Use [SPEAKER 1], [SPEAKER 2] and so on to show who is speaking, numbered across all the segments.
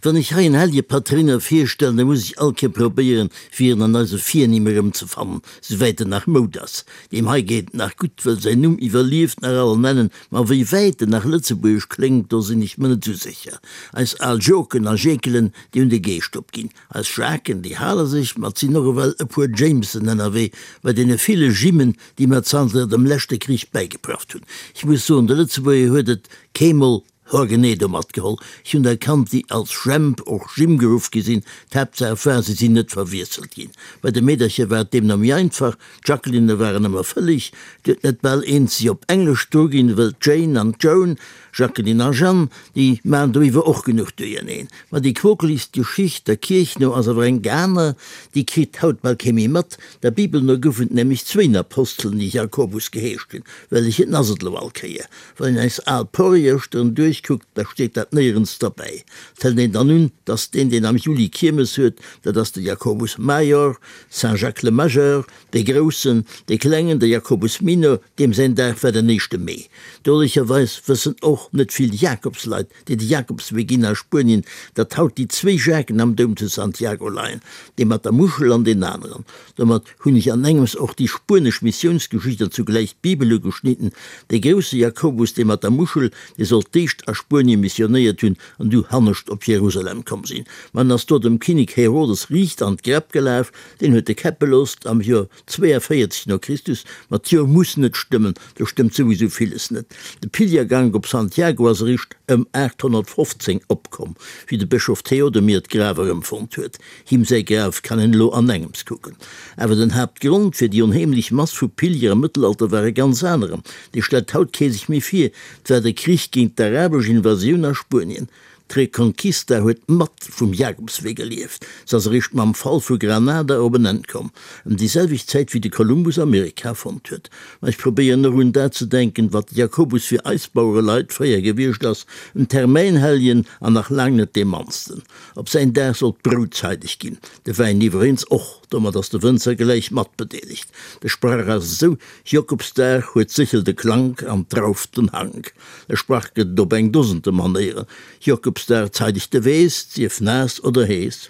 [SPEAKER 1] Wann ech hei en hellje Patréiner virstellen, da muss ech all Kéier probéieren, fir en an eise Virnimm erëmzefannen, souwäit en nach Moud ass. Deem hei geet et nach gutt, wëll säin Numm iwwerlieft nach all an Ennen, ma wéi wäit en nach lëtzebuergesch kléngt, do sinn ech mer net esou sécher. Eis al Joken a Jekelen, déi hunn de Geescht opginn. Eis Jacqueën, déi hale sech, ma et sinn och ewell e puer Jamesen ënnerwee, bei deene ville Jimmen, déi mer zanter dem leschte Krich bäigeprafft hunn. Ech muss soen, de Lëtzebuerger huet et keemol Hoer genee do matgeholl. Ech hunn der kannt, déi als Jemp, och Jim geruff gi sinn. D'Haaptsaach war, se sinn net verwiesselt ginn. Bei de Meedercher war et deemno méi einfach, d'Jacquelinne waren ëmmer fëlleg, et huet net bal eent si op Englesch druginn, wëll d'Jane an d'Joan, Jacqueline a Jeanne, déi maan doiwwer och genuch duerjerneen. Ma déi quokeligst Geschicht, der Kierch no, ass awer eng aner, déi kritt haut bal kee méi mat. Der Bibel no goufen et nämlech zwéin Apostelen, déi Jakobus geheescht hunn. Wellechen ass et elo all Kéier? Wann een eis al Porrierschteren duerchkuckt, da steet dat néierens derbäi. Et hëlt een dann un, dass deen, deen am Juli Kiermes huet, dat ass de Jacobus Major, Saint Jacques le Majeur, dee Groussen, dee Klengen, de Jacobus Minor, deem säin Dag war den éischte Mee. Drolecherweis wëssen och net vill Jakobsleit, déi de Jakobswee ginn a Spuenien, datt haut déi zwéi Jacqueën am Doum zu Santiago leien, dee mat der Muschel an deen aneren. Domat hunn ech an engems och déi spuenesch Missiounsgeschicht an zugläich d'Bibel ugeschnidden. Dee grousse Jakobus, dee mat der Muschel, dee soll d'éischt a Spuenie missionéiert hunn an du hannescht op Jerusalem komm sinn. Ma en ass do dem Kinnek Herodes riicht an d'Gräpp gelaf, deen huet e käppe loosst am Joer 42 no Christus. Ma d'Joer muss net stëmmen, do stëmmt souwisou villes net. De Pilgergank op Santiago ass eréischt ëm 815 opkomm, wéi de Bëschof Theodomir d'Graf erëmfonnt huet. Him säi Graf kann een elo anengems kucken. Awer den Haaptgrond fir déi onheemlech Mass vu Pilger am Mëttelalter war e ganz aneren, dee stellt haut kee sech méi vir, 't war de Krich géint d'arabesch Invasioun a Spuenien. D'Reconquista huet mat vum Jakobswee gelieft, se ass eréischt mam Fall vu Granada op en Enn komm, ëm déi selwecht Zäit wéi de Kolumbus Amerika fonnt huet. Ma ech probéieren och un dat ze denken, wat de Jakobus fir eis Bauereleit fréier gewiescht ass, en Termäinhelljen an nach laang net dee mannsten. Op säin Dag soll d'Brout zeideg ginn, de Wäin iwwereens och, domat ass de Wënzer gläich mat bedeelegt. De Sprach ass esou, Jokobsdag huet d'Séchel de Klank an d'Drauf den Hank. E Sprach gëtt et op eng Dosente Manéieren, Jokobsdag zeideg de Weess, sief naass oder hees.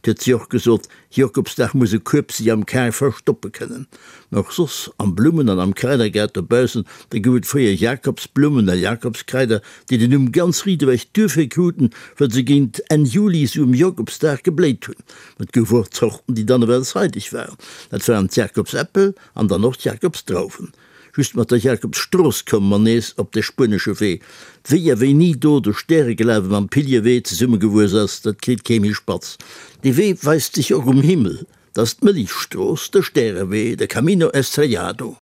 [SPEAKER 1] 't huet si och gesot, Jokobsdag muss e Kueb si am Kar verstoppe kënnen. Mä och soss, am Blummen an am Kraidergaart dobaussen, da gouf et fréier Jakobsblummen a Jakobskraider, déi den Numm ganz riit ewech duerfir kruten, well se géint Enn Juli, sou um Jokobsdag, gebléit hunn. Mä et gouf och Zorten, déi dann ewell zeideg waren. Dat waren d'Jakobsäppel an dann och d'Jakobsdrauwen. Just mat der Jakobsstrooss komme mer nees op de spuenesche Wee. Wéi a wéini do de Stäreglawe mam Piliewee zesummegewuess ass, dat kritt kee méi spatz. Dee Wee weist sech och um Himmel, 't ass d'Mëllechstrooss, de Stärewee, de Camino Estrellado.